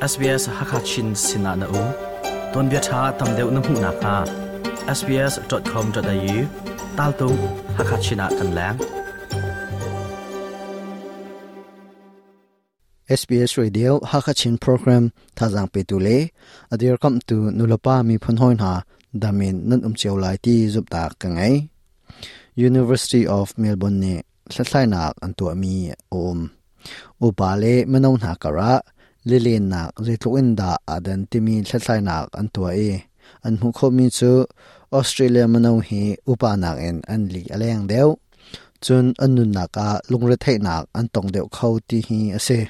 SBS Hakachin sinah na um. Tuanbia ṭha tam deuh na hmuh nakhnga sbs.com.au taltung Hakachin ah kan leng. SBS Radio Hakachin program thazang petu le adir kamtu nulapa mi phun hoi hna damin nan um cio lai ti zumhtak ka ngei. University of Melbourne nih hlathlainak an tuahmi a um. Upa le mino hna karah lilennak zeitluk in dah aa dan timi hlathlainak an tuah i an hmuh khawhmi cu Australia mino hi upa nakin an li a leng deuh. Cun an nunnak ah lungretheihnak an tong deuh kho ti hi a si.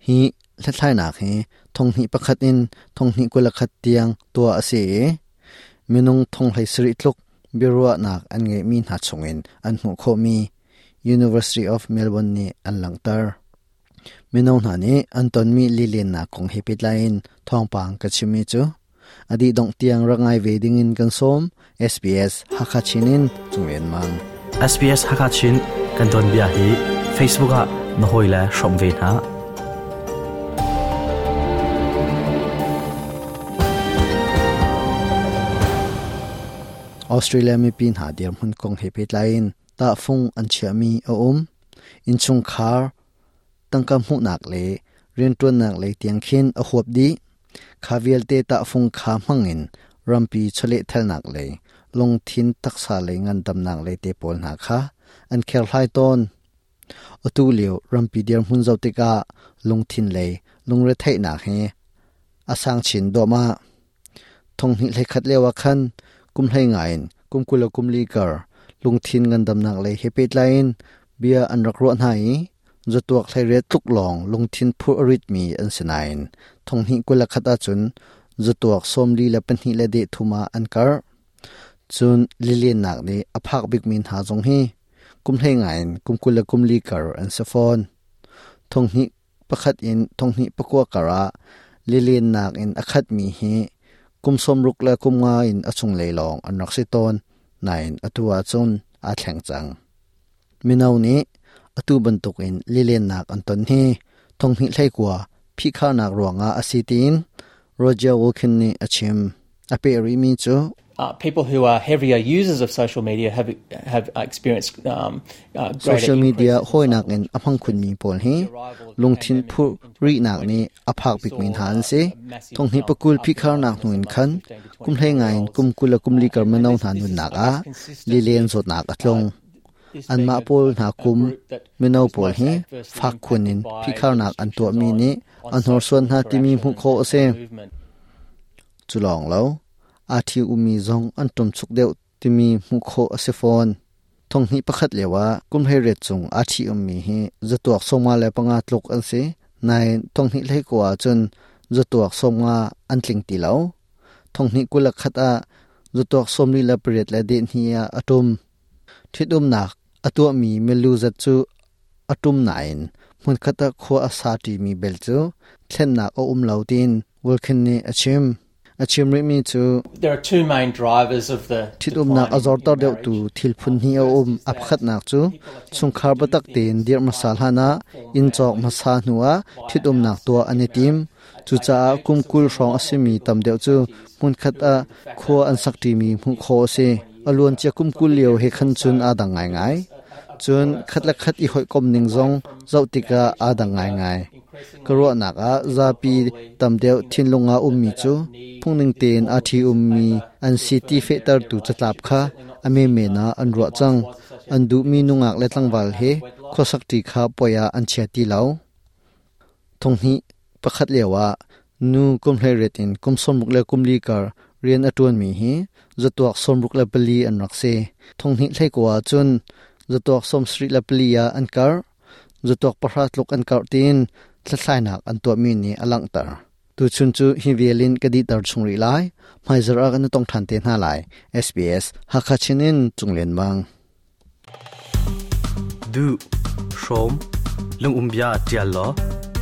Hi hlathlainak hi thonghnih pakhat in thonghnih 21 tiang tuah a si i minung thong hlei sarih tluk biaruahnak an ngeihmi hna chungin an hmuh khawhmi University of Melbourne nih an langhter. Mino hna nih an tonmi lilennak kong he pehtlai in thawngpang ka chimmi cu a dih dongh tiang rak ngai ve dingin kan sawm. SBS Hakha Chin in Cunglen Mang. SBS Hakha Chin kan tuanbia hi Facebook ah na hawile hrawm ve hna. Australia mipi hna dirhmun kong he pehtlai in tahfung an chiahmi a um. Innchungkhar tangka hmuhnak le rianṭuannak lei tiang khin a huap dih. Kha vialte tahfung kha hmangin rampi chawlehthalnak lei, lungthin taksa lei ngandamnak lei te pawl hna kha an kherhlai tawn. Atu lio rampi dirhmun zoh tikah lungthin lei lungretheihnak hi a sang chin duahmah. Thonghnih hleikhat lio ah khan kum hlei nga in kum 20 le kum li kar lungthin ngandamnak lei he pehtlai in bia an rak ruah hna i zatuak hleiriat tluk lawng lungthin phurh a ritmi an si nain thonghnih 21 ahcun zatuak 42 le deh thum ah an karh. Cun lilennak nih a phak bikmi hna zong hi kum hlei nga in kum 20 le kum li kar an si fawn. Thonghnih pakhat in thonghnih pakua kar ah lilennak in a khatmi hi kum 60 le kum nga in a chunglei lawng an rak si tawn nain atu ahcun aa thleng cang. Mino nih atu bantukin lilennak an ton hi thonghnih hleikua phihkharnak ruangah a si tiin Roger Wilkin nih a chim. A peh rihmi cu People who are heavier users of social media have have experienced greater Social media hawinak in a hmang khunmi pawl hi lungthin phurh rihnak nih a phak bikmi hna an si. Thonghnih pakul phihkharnak hnu in khan kum hlei ngai in kum 20 le kum li kar mino hna nunnak ah lilen zawtnak a tlung. Anmah pawl hna kum mino pawl hi fak khun in phihkharnak an tuahmi nih a hnorsuan hna timi hmuh khawh a si. Cu lawng lo, aa ṭhi ummi zong an ṭumchuk deuh timi hmuh khawh a si fawn. Thonghnih pakhat lio ah kum 18 cung aa ṭhi ummi hi zatuak 55 tluk an si. Nain thonghnih 19 ahcun zatuak 50 an tling ti lo. Thonghnih 21 ah zatuak 48 le dehhnih ah a ṭum. Ṭhitumnak a tuahmi milu zat cu a ṭum nain hmunkhat ah khua a sa ṭimi bel cu thlennak a um lo tiin Wilkin nih a chim. A chim rihmi cu There are two main drivers of the ṭhitumnak a zorter deuhtu thil phun hnih a um. A pakhatnak cu chungkhar biatak tein dirh hmasa hlanah inn cawk hmasa hnuah ṭhitumnak tuah an i tim. Cucaah kum 20 hrawng a simi tam deuh cu hmunkhat ah khua an sak ṭimi hmuh khawh a si. A luancia kum 20 lio he khan cun aa dang ngaingai. Cun khat le khat i hawikom ning zong zoh tikah aa dang ngaingai. Ka ruahnak ah zapi tam deuh thinlung ah ummi cu phungning tein aa ṭhi ummi an si ti fehtertu catlap kha a menmen ah an ruah cang. An duhmi nungak le tlangval he khuasakṭi kha puai ah an chia ti lo. Thonghnih pakhat lio ah nu kum 18 in kum 60 le kum li kar rian a ṭuanmi hi zatuak 64 an rak si. Thonghnih 19 ah cun zatuak 74 ah an karh. Zatuak pahra tluk an karh tiin hlathlainak an tuahmi nih a langhter. Tuchun cu hi vial in ka dihter chung rih lai. Hmaizarh ah kan i tong ṭhan te hna lai. SBS Hakha Chin in Cunglen Mang. Duh, hrawm, lungumbia ṭial law,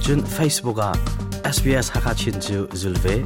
cun Facebook ah SBS Hakha Chin cu zul ve.